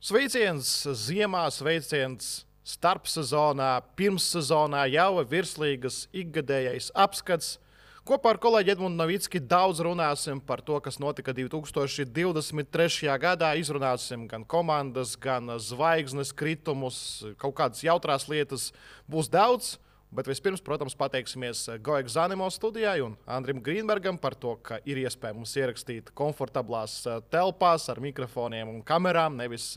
Sveiciens ziemā, sveiciens starpsezonā, pirmssezonā jau virslīgas ikgadējais apskats. Kopā ar kolēģi Edmundu Novicki daudz runāsim par to, kas notika 2023. gadā. Izrunāsim gan komandas, gan zvaigznes kritumus, kaut kādas jautrās lietas būs daudz. Bet vispirms, protams, pateiksimies Goek Zanimo studijai un Andrim Grīnbergam par to, ka ir iespēja mums ierakstīt komfortablās telpās ar mikrofoniem un kamerām. Nevis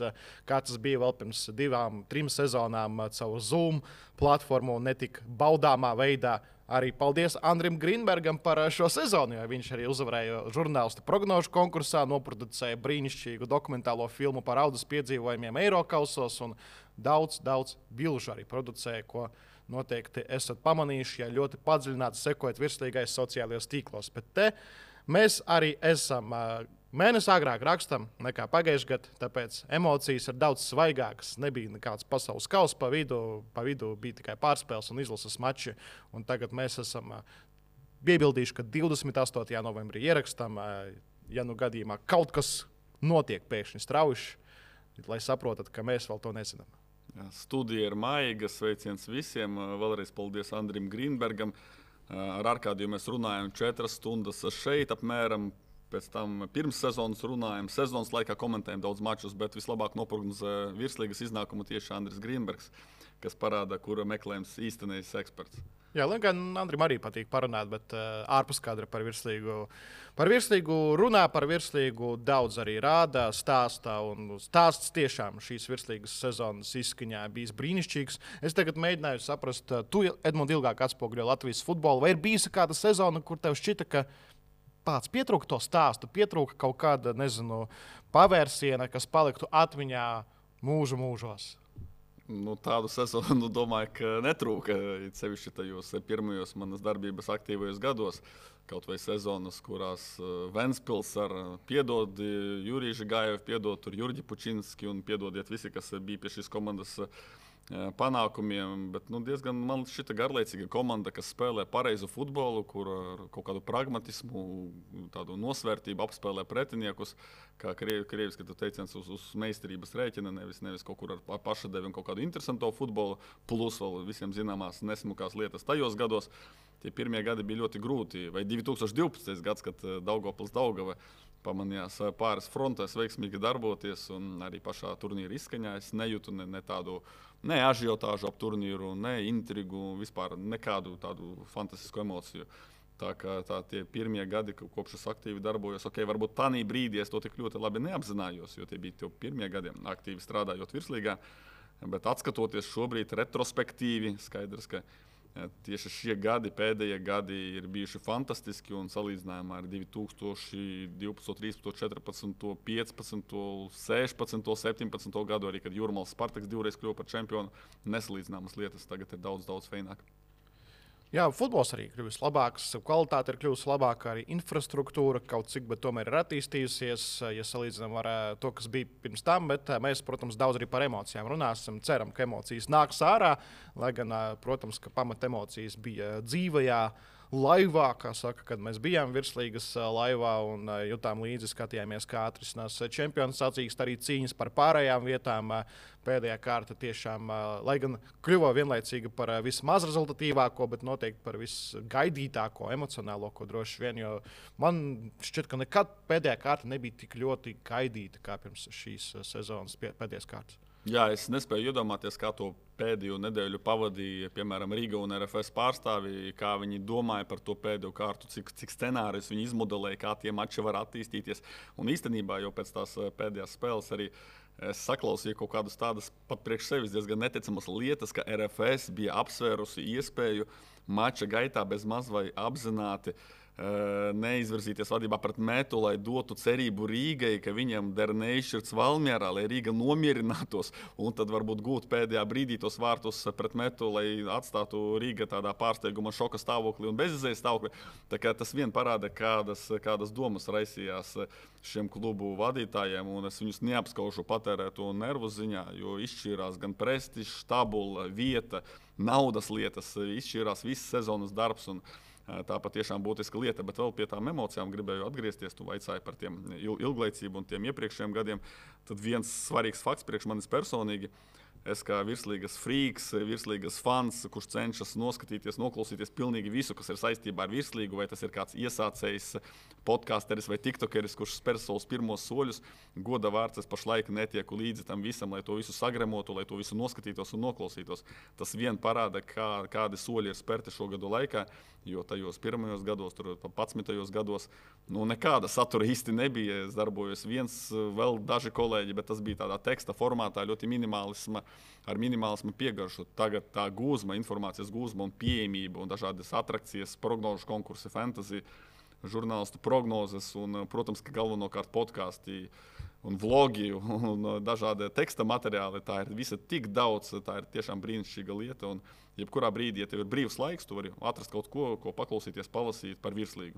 kā tas bija vēl pirms 2-3 sezonām caur Zoom platformu un netik baudāmā veidā. Arī paldies Andrim Grīnbergam par šo sezonu, jo viņš arī uzvarēja žurnālistu prognožu konkursā, noproducēja brīnišķīgu dokumentālo filmu par audas piedzīvojumiem Eirokausos un daudz bilžu arī producēja, ko noteikti esat pamanījuši, ja ļoti padziļināti sekojat virslīgais sociālajos tīklos. Bet te mēs arī esam mēnesi agrāk rakstam nekā pagājušajā gadā, tāpēc emocijas ir daudz svaigākas. Nebija nekāds pasaules kausa pa vidu bija tikai pārspēles un izlases mači. Un tagad mēs esam piebildījuši, ka 28. novembrī ierakstam, ja nu gadījumā kaut kas notiek pēkšņi strauji, lai saprotat, ka mēs vēl to nezinām. Studija ir maiga, sveiciens visiem. Vēlreiz paldies Andrim Grīnbergam. Ar Arkādiju mēs runājam 4 stundas šeit apmēram. Pēc tam pirms sezonas runājam, sezonas laikā komentējam daudz mačus, bet vislabāk noprognozē virslīgas iznākumu tieši Andris Grīnbergs, kas parāda, kura meklējums īstenais eksperts. Jā, lai gan Andrim arī patīk parunāt, bet ārpus kadra par virslīgu runā, par virslīgu daudz arī rāda, stāstā. Un stāsts tiešām šīs virslīgas sezonas izskaņā bijis brīnišķīgs. Es tagad mēģināju saprast, tu, Edmund, ilgāk atspoguļo Latvijas futbolu. Vai ir bijusi kāda sezona, kur tev šķita, ka pats pietrūka to stāstu, pietrūka kaut kāda, pavērsiena, kas paliktu atmiņā mūžos? Tādu sezonu domāju, ka netrūka. Sevišķi tajos pirmajos manas darbības aktīvajos gados. Kaut vai sezonas, kurās Ventspils ar piedod Juriju Žigājevu, piedod tur Jurģi Pučinski un piedodiet visi, kas bija pie šīs komandas panākumiem, bet diezgan man šita garlaicīga komanda, kas spēlē pareizu futbolu, kur ar kaut kādu pragmatismu, tādu nosvērtību apspēlē pretiniekus, kā krieviski teiciens uz meistarības rēķina, nevis kaut kur ar pašadevi un kaut kādu interesanto futbolu, plus vēl visiem zināmās nesmukās lietas tajos gados. Tie pirmie gadi bija ļoti grūti, vai 2012. gads, kad Daugavpils Daugava pamanījās pāris frontēs veiksmīgi darboties un arī pašā turnīra izskaņā. Es nejūtu ne tādu ažiotāžu ap turnīru, ne intrigu, vispār nekādu tādu fantastisku emociju. Tā kā tie pirmie gadi, kopš es aktīvi darbojos, varbūt tādā brīdī es to tik ļoti labi neapzinājos, jo tie bija tie pirmie gadi aktīvi strādājot virslīgā. Bet atskatoties šobrīd retrospektīvi, skaidrs, ka tieši šie gadi, pēdējie gadi ir bijuši fantastiski un salīdzinājumā ar 2012, 13, 14, 15, 16, 17 gadu, arī kad Jūrmāls Spartaks divreiz kļuva par čempionu, nesalīdzināmas lietas tagad ir daudz feināk. Jā, futbols arī kļuvis labāks, kvalitāte ir kļuvusi labāka, arī infrastruktūra kaut cik, bet tomēr ir attīstījusies, ja salīdzinām ar to, kas bija pirms tam, bet mēs, protams, daudz arī par emocijām runāsim. Ceram, ka emocijas nāks ārā, lai gan, protams, ka pamat emocijas bija dzīvajā laivā, kā saka, kad mēs bijām virslīgas laivā un jutām līdzi, skatījāmies, kā atrisinās čempionu sacīkst, arī cīņas par pārējām vietām. Pēdējā kārta tiešām, lai gan kļuva vienlaicīgi par vismaz rezultatīvāko, bet noteikti par visgaidītāko, emocionālāko droši vien, jo man šķiet, ka nekad pēdējā kārta nebija tik ļoti gaidīta kā pirms šīs sezonas pēdējās kārtas. Jā, es nespēju iedomāties, kā to pēdējo nedēļu pavadīja, piemēram, Rīga un RFS pārstāvji, kā viņi domāja par to pēdējo kārtu, cik scenārijus viņi izmodelēja, kā tie mači var attīstīties. Un īstenībā jau pēc tās pēdējās spēles arī es saklausīju kaut kādas tādas pat priekš sevis diezgan neticamas lietas, ka RFS bija apsvērusi iespēju mača gaitā bez maz vai apzināti neizvirzīties vadībā pret Metu, lai dotu cerību Rīgai, ka viņam der neizšķirts Valmierā, lai Rīga nomierinātos un tad varbūt gūt pēdējā brīdī tos vārtus pret Metu, lai atstātu Rīga tādā pārsteiguma šoka stāvoklī un bezizējas stāvoklī. Tā kā tas vien parāda, kādas domas raisījās šiem klubu vadītājiem, un es viņus neapskaužu patērēto nervu ziņā, jo izšķīrās gan prestižs, tabula, vieta, naudas lietas, izšķīrās viss sezonas darbs un Tā patiešām būtiska lieta, bet vēl pie tām emocijām gribēju atgriezties. Tu vaicāji par tiem ilglaicību un tiem iepriekšējiem gadiem. Tad viens svarīgs fakts priekš manis personīgi. Es kā virslīgas frīks, virslīgas fans, kurš cenšas noskatīties, noklausīties pilnīgi visu, kas ir saistībā ar virslīgu, vai tas ir kāds iesācējs podcasteris vai tiktokeris, kurš spēr savus pirmos soļus. Goda vārds, es pašlaik netieku līdzi tam visam, lai to visu sagremotu, lai to visu noskatītos un noklausītos. Tas vien parāda, kādi soļi ir spērti šo gadu laikā, jo tajos pirmajos gados, tur 11. gados, nekāda satura īsti nebija. Es darbojos viens, vēl daži kolēģi, bet tas bija tādā teksta formātā, ļoti ar minimālismu piegaršu. Tagad tā gūzma, informācijas gūzma un pieejamība un dažādas atrakcijas, prognožu konkursi, fantasy, žurnālistu prognozes un, protams, ka galvenokārt podkāsti un vlogi un dažādi teksta materiāli. Tā ir visa tik daudz, tā ir tiešām brīnišķīga lieta. Un jebkurā brīdī, ja tev ir brīvs laiks, tu vari atrast kaut ko paklausīties, palasīt par virslīgu.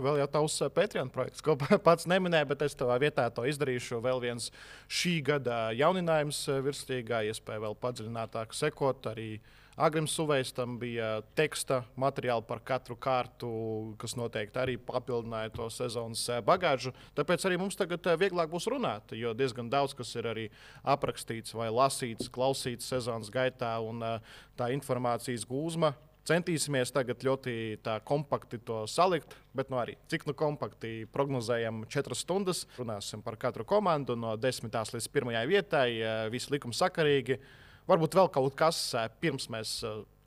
Vēl jau tavs Patreon projekts, ko pats neminēja, bet es tavā vietā to izdarīšu. Vēl viens šī gada jauninājums virslīgā, iespēja vēl padziļinātāk sekot. Arī Agrims Suvejs tam bija teksta materiāli par katru kārtu, kas noteikti arī papildināja to sezonas bagāžu. Tāpēc arī mums tagad vieglāk būs runāt, jo diezgan daudz kas ir arī aprakstīts vai lasīts, klausīts sezonas gaitā, un tā informācijas gūzma. Centīsimies tagad ļoti kompakti to salikt, bet arī cik kompakti prognozējam 4 stundas. Runāsim par katru komandu no 10. līdz 1. vietai, visi likumi sakarīgi. Varbūt vēl kaut kas, pirms mēs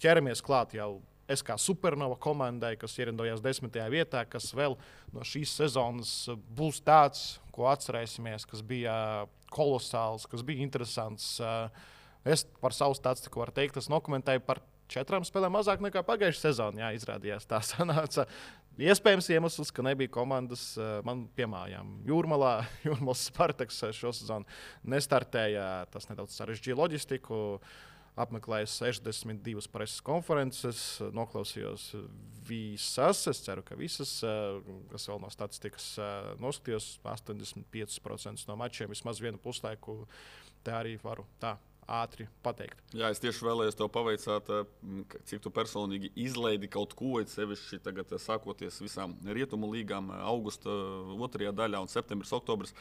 ķeramies klāt jau SK Supernova komandai, kas ierindojās 10. vietā, kas vēl no šīs sezonas būs tāds, ko atcerēsimies, kas bija kolosāls, kas bija interesants. Es par savu statistiku varu teikt, es nokomentēju par 4 spēlēm mazāk nekā pagājušajā sezonā. Izrādījās tā sanāca. Iespējams iemesls, ka nebija komandas man piemājām. Jūrmalas Spartaks šo sezonu nestartēja. Tas nedaudz sarežģīja loģistiku. Apmeklēju 62 preses konferences, noklausījos visas. Es ceru, ka visas, kas vēl no statistikas noskatījos, 85% no mačiem, vismaz vienu puslaiku. Tā arī varu ātri pateikt. Jā, es tieši vēlējos tev pavaicāt, cik tu personīgi izlaidi kaut ko, sevišķi tagad sākoties visām rietumu līgām augusta 2. daļā un septembris, oktobris.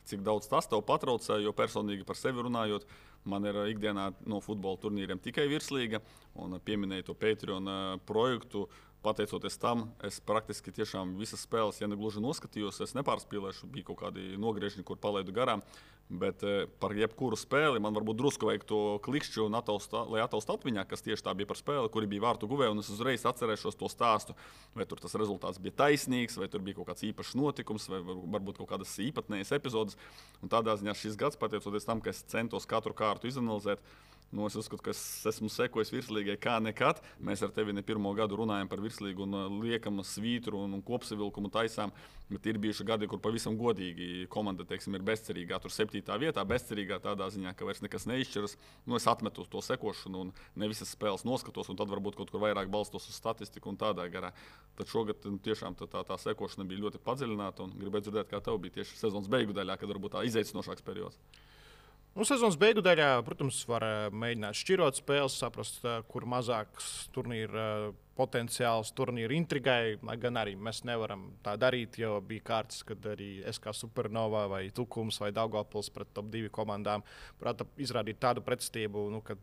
Cik daudz tas tev patraucē, jo personīgi par sevi runājot, man ir ikdienā no futbola turnīriem tikai virslīga, un pieminēju to Patreon projektu. Pateicoties tam, es praktiski tiešām visas spēles, ja ne gluži noskatījos, es nepārspīlēšu, bija kaut kādi nogriežņi, kur palaidu garām. Bet par jebkuru spēli man varbūt drusku vajag to klikšķi, lai ataustu atmiņā, kas tieši tā bija par spēli, kuri bija vārtu guvēji, un es uzreiz atcerēšos to stāstu. Vai tur tas rezultāts bija taisnīgs, vai tur bija kaut kāds īpašs notikums, vai varbūt kaut kādas īpatnējas epizodes. Un tādā ziņā šis gads, pateicoties tam, ka es centos katru kārtu izanalizēt, es uzskatu, ka es esmu sekojis virslīgai kā nekad. Mēs ar tevi ne pirmo gadu runājam par virslīgu un liekam svītru un kopsavilkumu taisām. Bet ir bijuši gadi, kur pavisam godīgi komanda, teiksim, ir bezcerīgā. Tur 7. vietā, bezcerīgā tādā ziņā, ka vairs nekas neizšķiras. Es atmetu to sekošanu un ne visas spēles noskatos, un tad varbūt kaut kur vairāk balstos uz statistiku un tādā garā. Tad šogad tiešām tā sekošana bija ļoti padziļināta, un gribētu dzirdēt, kā tev bija tieši sezonas beigu daļā, kad varbūt tā izaicinošāks periods. Sezonas beigu daļā, protams, var mēģināt šķirot spēles, saprast, kur mazāks turnīra potenciāls, turnīra intrigai. Lai gan arī mēs nevaram tā darīt, jo bija kārtas, kad arī SK Supernova vai Tukums vai Daugavpils pret top 2 komandām prata izrādīt tādu pretstību, ka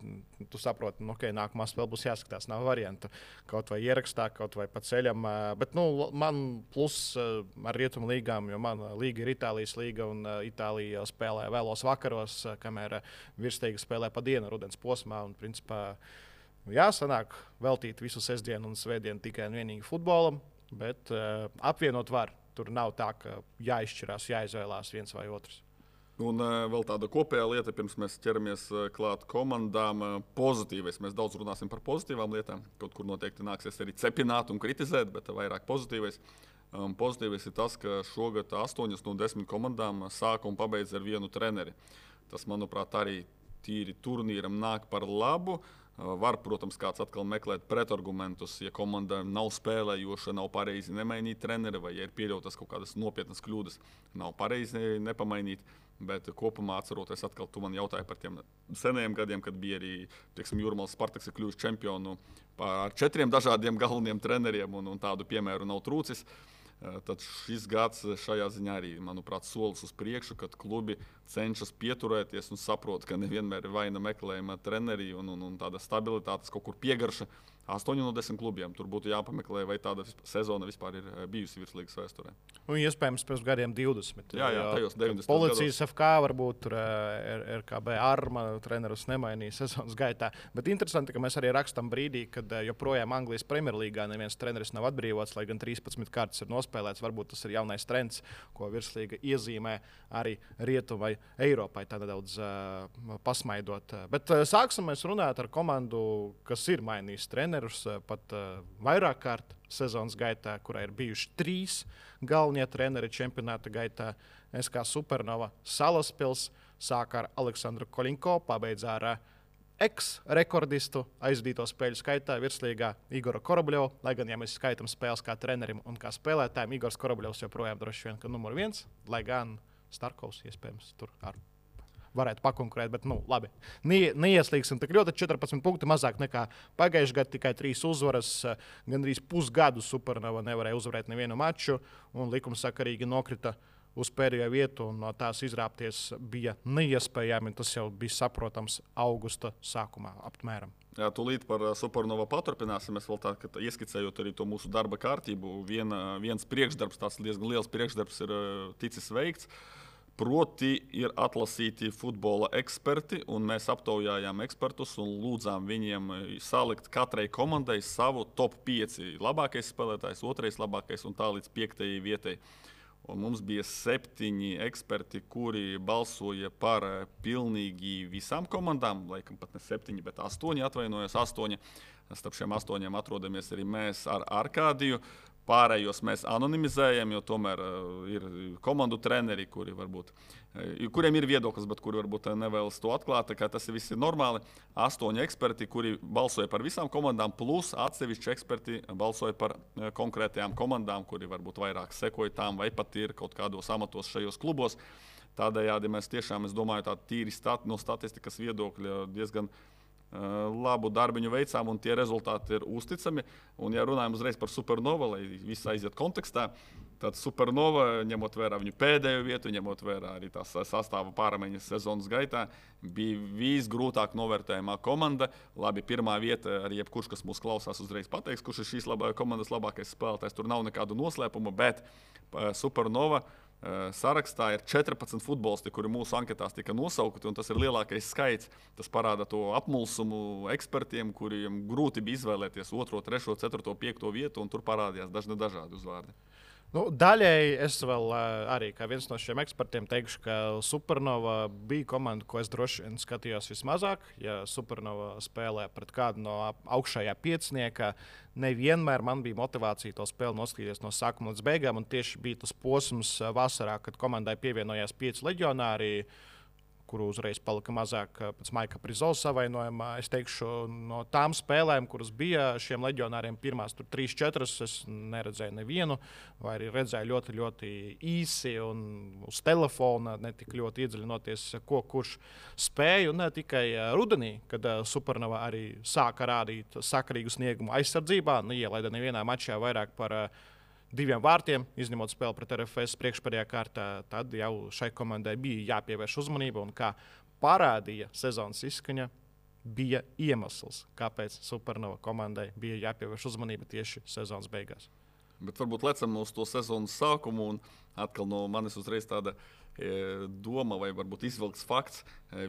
tu saproti, ka nākamā spēle būs jāskatās. Nav variantu. Kaut vai ierakstā, kaut vai pa ceļam. Bet man plus ar rietumu līgām, jo man līga ir Itālijas līga un Itālija spēlē vēlos vakaros, kamēr virslīga spēlē pa dienu rudens posmā. Un, principā, sanāk veltīt visu sestdienu un svētdienu tikai un vienīgi futbolam, bet apvienot var. Tur nav tā, ka jāizšķirās, jāizvēlās viens vai otrs. Un vēl tāda kopējā lieta, pirms mēs ķeramies klāt komandām, pozitīvais. Mēs daudz runāsim par pozitīvām lietām. Kaut kur noteikti nāksies arī cepināt un kritizēt, bet vairāk pozitīvais. Pozitīvais ir tas, ka šogad 8 no 10 komandām sāka un pabeidz ar vienu treneri. Tas, manuprāt, arī tīri turnīram nāk par labu. Var, protams, kāds atkal meklēt pretargumentus, ja komanda nav spēlējoša, nav pareizi nemainīt treneri, vai ja ir pieļautas kaut kādas nopietnas kļūdas, nav pareizi nepamainīt. Bet kopumā atceroties, atkal tu man jautāji par tiem senajiem gadiem, kad bija arī Jūrmālas Spartaks ir kļuvis čempionu ar 4 dažādiem galveniem treneriem, un tādu piemēru nav trūcis. Tad šis gads šajā ziņā arī, manuprāt, solis uz priekšu, kad klubi cenšas pieturēties un saprot, ka nevienmēr ir vaina meklējuma treneri un tāda stabilitātes kaut kur piegarša. 8 no 10 klubiem. Tur būtu jāpameklē, vai tāda sezona vispār ir bijusi virslīgas vēsturē. Un iespējams pēc gadiem 20. Jā, tajos 90. Policijas gados. FK varbūt tur RKB Arma trenerus nemainīja sezonas gaitā. Bet interesanti, ka mēs arī rakstam brīdī, kad joprojām Anglijas Premjerlīgā neviens treneris nav atbrīvots, lai gan 13 kārtas ir nospēlēts. Varbūt tas ir jaunais trends, ko virslīga iezīmē arī Rietuvai Eiropai tā nedaudz pasmaidot. Bet sāksim mēs runāt ar komandu, kas ir mainījis trenerus pat vairāk kārt sezonas gaitā, kurā ir bijuši 3 galvenie treneri čempionāta gaitā. SK Supernova Salaspils sāka ar Aleksandru Koļinko, pabeidza ar ex-rekordistu aizdīto spēļu skaitā virslīgā Igoru Korobļovu. Lai gan, ja mēs skaitām spēles kā trenerim un kā spēlētājiem, Igors Korobļovs joprojām droši vien, ka numur 1, lai gan Starkovs iespējams tur ar varētu pakonkurēt, bet labi. Neieslīgsim tik ļoti. 14 punkti mazāk nekā pagājušajā gadā, tikai 3 uzvaras. Gandrīz pusgadu Supernova nevarēja uzvarēt nevienu maču, un likumsakarīgi nokrita uz pēdējo vietu, un no tās izrāpties bija neiespējami. Tas jau bija saprotams augusta sākumā apmēram. Jā, tūlīt par Supernova paturpināsim. Es vēl tā, ka ieskicējot arī to mūsu darba kārtību, viens priekšdarbs, tāds diezgan liels priekšdarbs ir ticis veikts. Proti ir atlasīti futbola eksperti, un mēs aptaujājām ekspertus un lūdzām viņiem salikt katrai komandai savu top 5 labākais spēlētājs, 2. labākais un tā līdz 5. vietai. Un mums bija 7 eksperti, kuri balsoja par pilnīgi visām komandām, laikam pat ne 7, bet 8, atvainojos 8. Starp šiem 8 atrodamies arī mēs ar Arkādiju. Pārējos mēs anonimizējam, jo tomēr ir komandu treneri, kuriem ir viedoklis, bet kuri varbūt nevēlas to atklāt. Tas viss ir normāli. 8 eksperti, kuri balsoja par visām komandām, plus atsevišķi eksperti balsoja par konkrētajām komandām, kuri varbūt vairāk sekoja tām vai pat ir kaut kādos amatos šajos klubos. Tādējādi mēs tiešām, es domāju, tā tīri no statistikas viedokļa diezgan labu darbiņu veicām, un tie rezultāti ir uzticami. Un, ja runājam uzreiz par Supernova, lai viss aiziet kontekstā, tad Supernova, ņemot vērā viņu pēdējo vietu, ņemot vērā arī tās sastāva pārmaiņas sezonas gaitā, bija visgrūtāk novērtējumā komanda. Labi, pirmā vieta, arī jebkurš, kas mūs klausās, uzreiz pateiks, kurš ir šīs komandas labākais spēlētājs. Tur nav nekādu noslēpumu, bet Supernova sarakstā ir 14 futbolisti, kuri mūsu anketās tika nosaukti, un tas ir lielākais skaits. Tas parāda to apmulsumu ekspertiem, kuriem grūti bija izvēlēties 2., 3., 4., 5. vietu, un tur parādījās dažādi uzvārdi. Daļēji es vēl arī kā viens no šiem ekspertiem teikšu, ka Supernova bija komanda, ko es droši vien skatījos vismazāk. Ja Supernova spēlē pret kādu no augšējā piecinieka, nevienmēr man bija motivācija to spēli noskatīties no sākuma līdz beigām. Un tieši bija tas posms vasarā, kad komandai pievienojās 5 leģionāri, kuru uzreiz palika mazāk pēc Maika Prizo savainojumā. Es teikšu, no tām spēlēm, kuras bija šiem leģionāriem, pirmās 3-4, es neredzēju nevienu, vai arī redzēju ļoti, ļoti īsi un uz telefona, ne tik ļoti iedziļinoties, ko kurš spēja. Un ne tikai rudenī, kad Supernova arī sāka rādīt sakarīgu sniegumu aizsardzībā, neielaida nevienā mačā vairāk par 2 vārtiem, izņemot spēli pret RFS priekšpēdējā kārtā, tad jau šai komandai bija jāpievērš uzmanība. Un kā parādīja sezonas izskaņa, bija iemesls, kāpēc Supernova komandai bija jāpievērš uzmanība tieši sezonas beigās. Bet varbūt lecam uz to sezonas sākumu, un atkal no manis uzreiz tāda doma vai varbūt izvilkts fakts.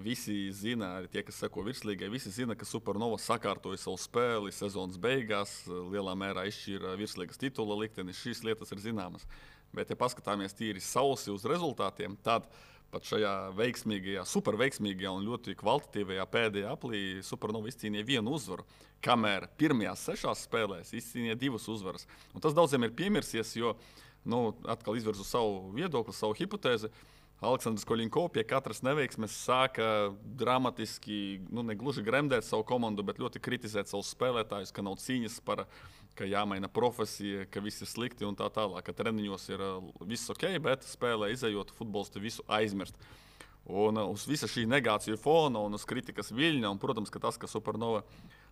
Visi zina, arī tie, kas seko virslīgai, visi zina, ka Supernova sakārtoja savu spēli sezonas beigās, lielā mērā izšķīra virslīgas titula likteni. Šīs lietas ir zināmas. Bet, ja paskatāmies tīri sausi uz rezultātiem, tad pat šajā veiksmīgajā, superveiksmīgajā un ļoti kvalitatīvajā pēdējā aplī Supernova izcīnīja 1 uzvaru, kamēr pirmajās 6 spēlēs izcīnīja 2 uzvaras. Un tas daudziem ir piemirsies, jo atkal izvirzu savu viedokli, savu hipotēzi. Aleksandrs Koļinko pie katras neveiksmes sāka dramatiski, ne gluži gremdēt savu komandu, bet ļoti kritizēt savus spēlētājus, ka nav cīņas par, ka jāmaina profesija, ka viss ir slikti un tā tālāk, ka treniņos ir viss ok, bet spēlē izejot futbolisti visu aizmirst. Un uz visa šī negāciju fona un uz kritikas viļņa, un, protams, ka tas, ka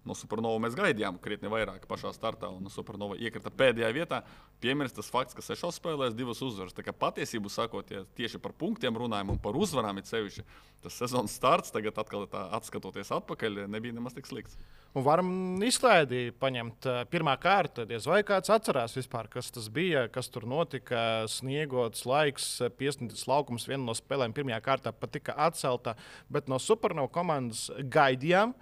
no Supernova mēs gaidījām krietni vairāk pašā startā, un Supernova iekrita pēdējā vietā, piemirst tas fakts, ka 6 spēlēs 2 uzvaras. Tā kā patiesību sakot, ja tieši par punktiem runājam un par uzvarām ir sevišķi, tas sezonas starts tagad atkal atskatoties atpakaļ nebija nemaz tik slikts. Un varam izklaidī paņemt pirmā kārta. Diez vai kāds atcerās vispār, kas tas bija, kas tur notika. Sniegots laiks, piesniegts laukums, viena no spēlēm pirmajā kārtā pat tika atcelta. Bet no Supernova komandas gaidījām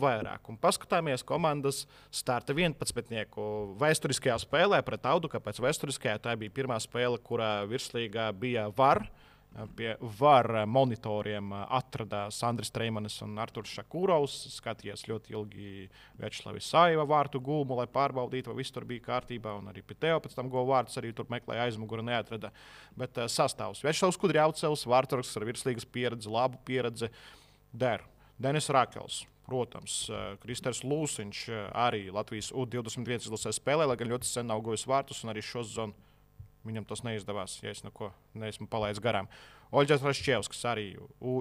vairāk. Un paskatāmies komandas starta 11-nieku vēsturiskajā spēlē pret Audu, kāpēc vēsturiskajā tā bija pirmā spēle, kurā virslīgā bija VAR. Pie VAR monitoriem atradās Andris Streimanis un Arturs Šakūrovs. Skatījās ļoti ilgi Večslavs Saiva vārtu gūmu, lai pārbaudītu, vai viss tur bija kārtībā. Un arī Piteo pēc tam govu vārds arī tur meklēja aizmuguri, neatrada. Bet sastāvs Večslavs Kudrjaucevs, vārtsargs ar virslīgas pieredzi, labu pieredzi der. Denis Rakels. Protams, Kristers Lūsiņš arī Latvijas U21 izlasē spēlē, lai gan ļoti sen nav gojis vārtus un arī šo sezonu. Viņam tas neizdevās, ja es neko neesmu palaidis garām. Oļģers Rašķevskis arī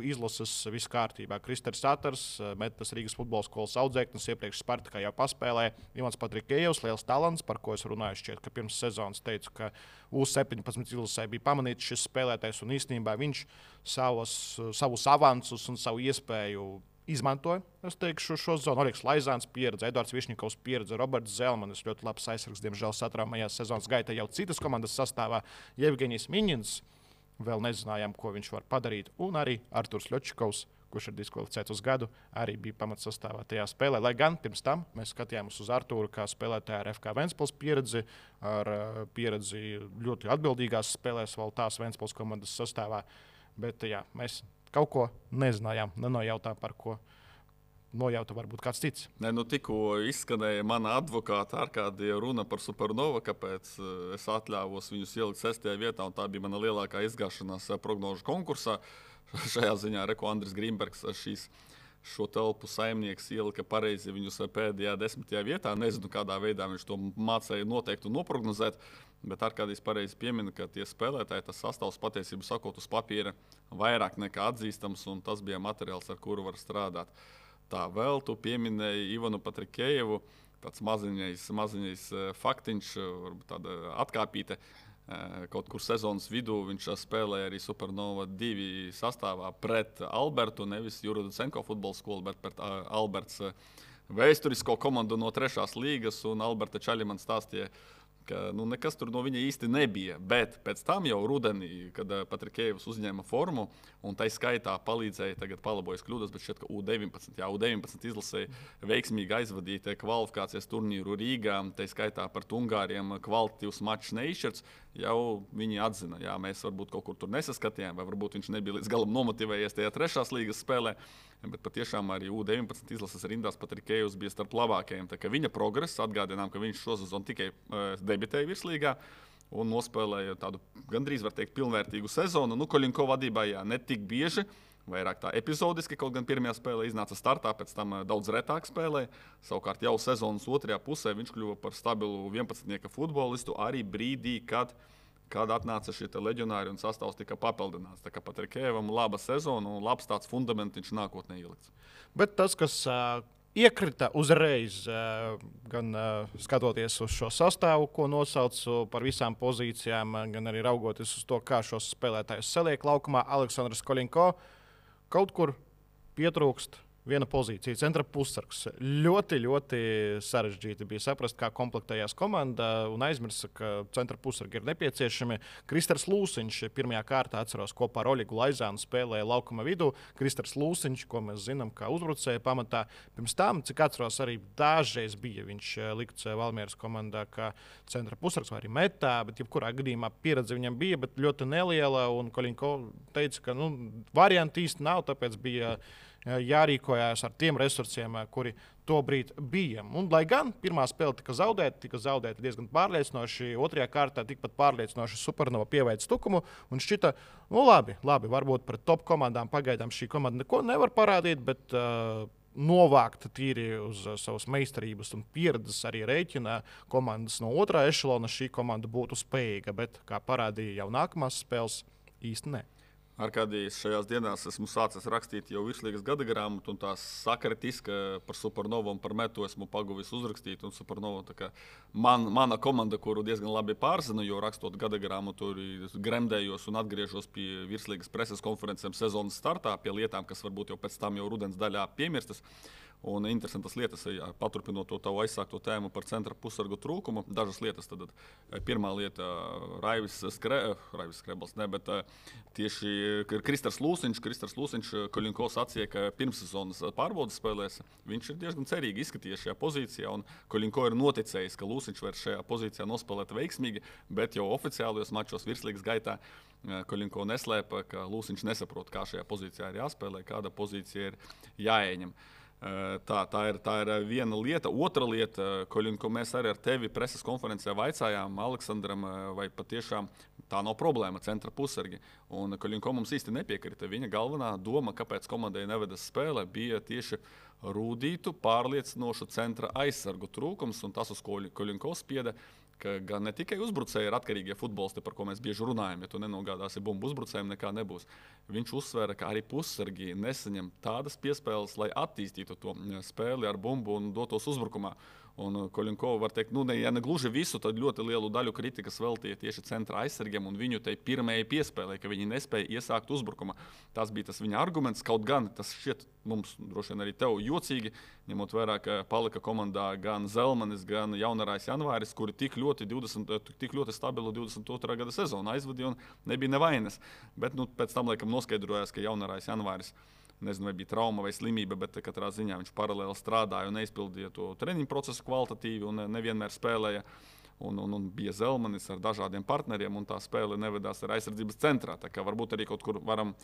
izlases viss kārtībā. Kristers Satars, Metas Rīgas futbola skolas audzēknis, iepriekš Spartakā jau paspēlēja. Ivans Patrikējevs, liels talants, par ko es runāju šķiet, ka pirms sezonas teicu, ka U17 izlasē bija pamanīts šis spēlētājs un īstenībā viņš savus avansus un savu iespēju izmantoja. Es teikšu, šo zonu Oļegs Laizāns pieredze, Edvards Višņikovs pieredze, Roberts Zelmanis, ļoti labs aizsargs, diemžēl satraumējās sezonas gaitā jau citas komandas sastāvā. Jevgeņijs Miņins, vēl nezinājām, ko viņš var padarīt, un arī Arturs Ļočikovs, kurš ir diskvalificēts uz gadu, arī bija pamatsastāvā tajā spēlē. Lai gan pirms tam mēs skatījāmies uz Arturu kā spēlētāju ar FK Ventspils pieredzi, ar pieredzi ļoti atbildīgās spēlēs vēl tās Ventspils komandas sastāvā. Bet jā, mēs kaut ko nezinājām, nenojautām, par ko nojauta varbūt kāds cits. Tikko izskanēja mana advokāta Arkādija runa par Supernovu, kāpēc es atļāvos viņus ielikt 6. vietā, un tā bija mana lielākā izgāšanās prognožu konkursā. Šajā ziņā Reko Andris Grīmbergs šo telpu saimnieks ielika pareizi viņus pēdējā 10. vietā. Nezinu, kādā veidā viņš to mācēja noteikt un noprognozēt, bet Arkādijs pareizi piemina, ka tie spēlētāji, tas sastāvs patiesību sakot uz papīra vairāk nekā atzīstams, un tas bija materiāls, ar kuru var strādāt. Tā vēl tu pieminēji Ivanu Patrikējevu, tāds maziņais faktiņš, varbūt tāda atkāpīte. Kaut kur sezonas vidū viņš spēlēja arī Supernova 2 sastāvā pret Albertu, nevis Juruducenko futbola skolu, bet pret Alberts vēsturisko komandu no 3. līgas, un Alberta Čaļi man stāstīja, ka nekas tur no viņa īsti nebija. Bet pēc tam jau rudenī, kad Patrikējevs uzņēma formu, un tai skaitā palīdzēja, tagad palabojas kļūdas, bet šķiet, ka U19 izlasēja veiksmīgi aizvadīt kvalifikācijas turnīru Rīgā, tai skaitā par Ungāriem kvalitatīvs mačs neizšķirts, jau viņi atzina, jā, mēs varbūt kaut kur tur nesaskatījām, vai varbūt viņš nebija līdz galam nomotivējies tajā 3. līgas spēlē, bet patiešām arī U19 izlases rindās Patrikējevs bija starp labākajiem. Tā kā viņa progress, atgādinām, ka viņš šo sezonu tikai debitēja virslīgā un nospēlēja tādu gandrīz, var teikt, pilnvērtīgu sezonu. Koļinko vadībā ne tik bieži, vairāk tā epizodiski, kaut gan pirmajā spēlē iznāca startā, pēc tam daudz retāk spēlēja. Savukārt jau sezonas 2. pusē viņš kļuva par stabilu 11-nieka futbolistu arī brīdī, kad atnāca šie leģionāri un sastāvs tika papildināts. Tā kā Patrikējevam laba sezona un labs tāds fundamentiņš nākotnē ielikts. Bet tas, kas iekrita uzreiz, gan skatoties uz šo sastāvu, ko nosaucu par visām pozīcijām, gan arī raugoties uz to, kā šos spēlētājus saliek laukumā, Aleksandrs Koļinko kaut kur pietrūkst viena pozīcija, centra pussargs. Ļoti, ļoti sarežģīti bija saprast, kā komplektējās komanda, un aizmirst, ka centra pussargi ir nepieciešami. Kristers Lūsiņš pirmajā kārtā, atceros, kopā ar Oļegu Laizānu spēlēja laukuma vidū. Kristers Lūsiņš, ko mēs zinām, kā uzbrucēja pamatā. Pirms tam, cik atceros, arī dažreiz bija viņš likts Valmieras komandā kā centra pussargs vai arī metā, bet jebkurā gadījumā pieredze viņam bija, bet ļoti neliela, un Koļinko teica, ka varianti īsti nav, tāpēc bija jārīkojās ar tiem resursiem, kuri tobrīd bija. Un, lai gan pirmā spēle tika zaudēta diezgan pārliecinoši, 2. kārtā tikpat pārliecinoši Supernova pieveica stukumu un šķita, labi, varbūt pret top komandām pagaidām šī komanda neko nevar parādīt, bet novākt tīri uz savas meistarības un pieredzes arī rēķina komandas no 2. ešelona šī komanda būtu spējīga, bet, kā parādīja jau nākamās spēles, īsti ne. Arkādijs, šajās dienās esmu sācis rakstīt jau virslīgas gada grāmatu, un tās sakritiski par Supernovu un par metu esmu paguvis uzrakstīt. Un Supernova, mana komanda, kuru diezgan labi pārzinu, jo rakstot gada grāmatu, gremdējos un atgriežos pie virslīgas preses konferencēm sezonas startā, pie lietām, kas varbūt jau pēc tam jau rudens daļā piemirstas. Un interesantas lietas, paturpinot to tavu aizsākto tēmu par centra pussargu trūkumu. Dažas lietas. Tad, pirmā lieta - Raivis Skrebels, bet tieši Kristers Lūsiņš, Koļinko sacīja, ka pirmssezonas pārbaudas spēlēs viņš ir diezgan cerīgi izskatījies šajā pozīcijā. Un Koļinko ir noticējis, ka Lūsiņš var šajā pozīcijā nospēlēt veiksmīgi, bet jau oficiālajos mačos virslīgas gaitā Koļinko neslēpa, ka Lūsiņš nesaprot, kā šajā pozīcijā ir jāspēlē, kāda pozīcija ir jāieņem. Tā ir viena lieta. Otra lieta, Koļinko, mēs arī ar tevi preses konferencē vaicājām Aleksandram, vai patiešām tā nav problēma centra pussargi. Un Koļinko mums īsti nepiekrita. Viņa galvenā doma, kāpēc komandai nevedas spēle, bija tieši rūdītu, pārliecinošu centra aizsargu trūkums, un tas uz Koļinko spieda, ka gan ne tikai uzbrucēji ir atkarīgie futbolisti, par ko mēs bieži runājam, ja tu nenogādāsi bumbu uzbrucējiem, nekā nebūs. Viņš uzsvēra, ka arī pussargi nesaņem tādas piespēles, lai attīstītu to spēli ar bumbu un dotos uzbrukumā. Un Koļinko var teikt, ja ne gluži visu, tad ļoti lielu daļu kritikas veltīja tieši centra aizsargiem un viņu tai pirmajai piespēlē, ka viņi nespēja iesākt uzbrukumā. Tas bija tas viņa arguments, kaut gan tas šķiet mums, droši vien arī tev, jocīgi, ņemot vērā, ka palika komandā gan Zelmanis, gan Jaunarais Janvāris, kuri tik ļoti stabilu 22. gada sezonu aizvadīja un nebija nevainas. Bet pēc tam laikam noskaidrojās, ka Jaunarais Janvāris, nezinu, vai bija trauma vai slimība, bet katrā ziņā viņš paralēli strādāja un neizpildīja to treniņu procesu kvalitatīvi un nevienmēr spēlēja. Un bija Zelmanis ar dažādiem partneriem, un tā spēle nevedās ar aizsardzības centrā. Tā kā varbūt arī kaut kur varam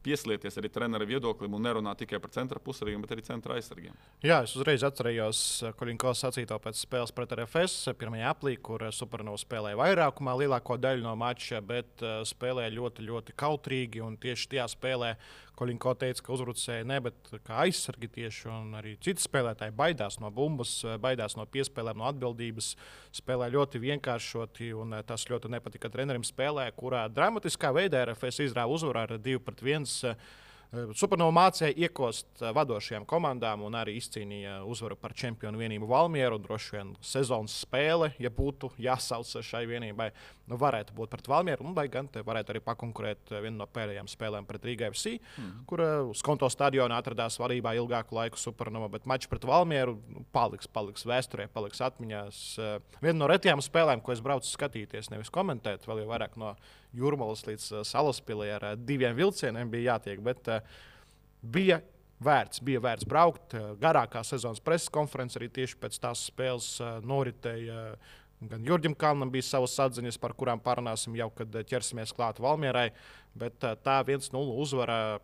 pieslieties arī trenera viedoklim un nerunāt tikai par centra pussargiem, bet arī centra aizsargiem. Jā, es uzreiz atcerējos Koļinko sacīto pēc spēles pret RFS, pirmajā aplī, kur Supernova spēlēja vairākumā lielāko daļu no mača, bet spēlēja ļoti, ļoti kautrīgi, un tieši tajā spēlē Koļinko teica, ka uzbrucēji ne, bet kā aizsargi tieši, un arī citi spēlētāji baidās no bumbas, baidās no piespēlēm, no atbildības, spēlē ļoti vienkāršoti, un tas ļoti nepatika trenerim spēlē, kurā dramatiskā veidā RFS izrāva uzvaru ar 2-1. Supernova mācīja iekost vadošajām komandām un arī izcīnīja uzvaru par čempionu vienību Valmieru. Droši vien sezonas spēle, ja būtu jāsauc šai vienībai, varētu būt pret Valmieru, un lai gan te varētu arī pakonkurēt vienu no pēdējām spēlēm pret Rīga FC, kur Skonto stadionā atradās vadībā ilgāku laiku Supernova, bet mačs pret Valmieru paliks vēsturē, paliks atmiņās. Viena no retajām spēlēm, ko es braucu skatīties, nevis komentēt, vēl jau vairāk no Jūrmalas līdz Salaspilī ar 2 vilcieniem bija jātiek, bet bija vērts braukt. Garākā sezonas preses konference arī tieši pēc tās spēles noritēja. Gan Jurģim Kalnam bija savas atziņas, par kurām parunāsim jau, kad ķersimies klāt Valmierai, bet tā 1-0 uzvara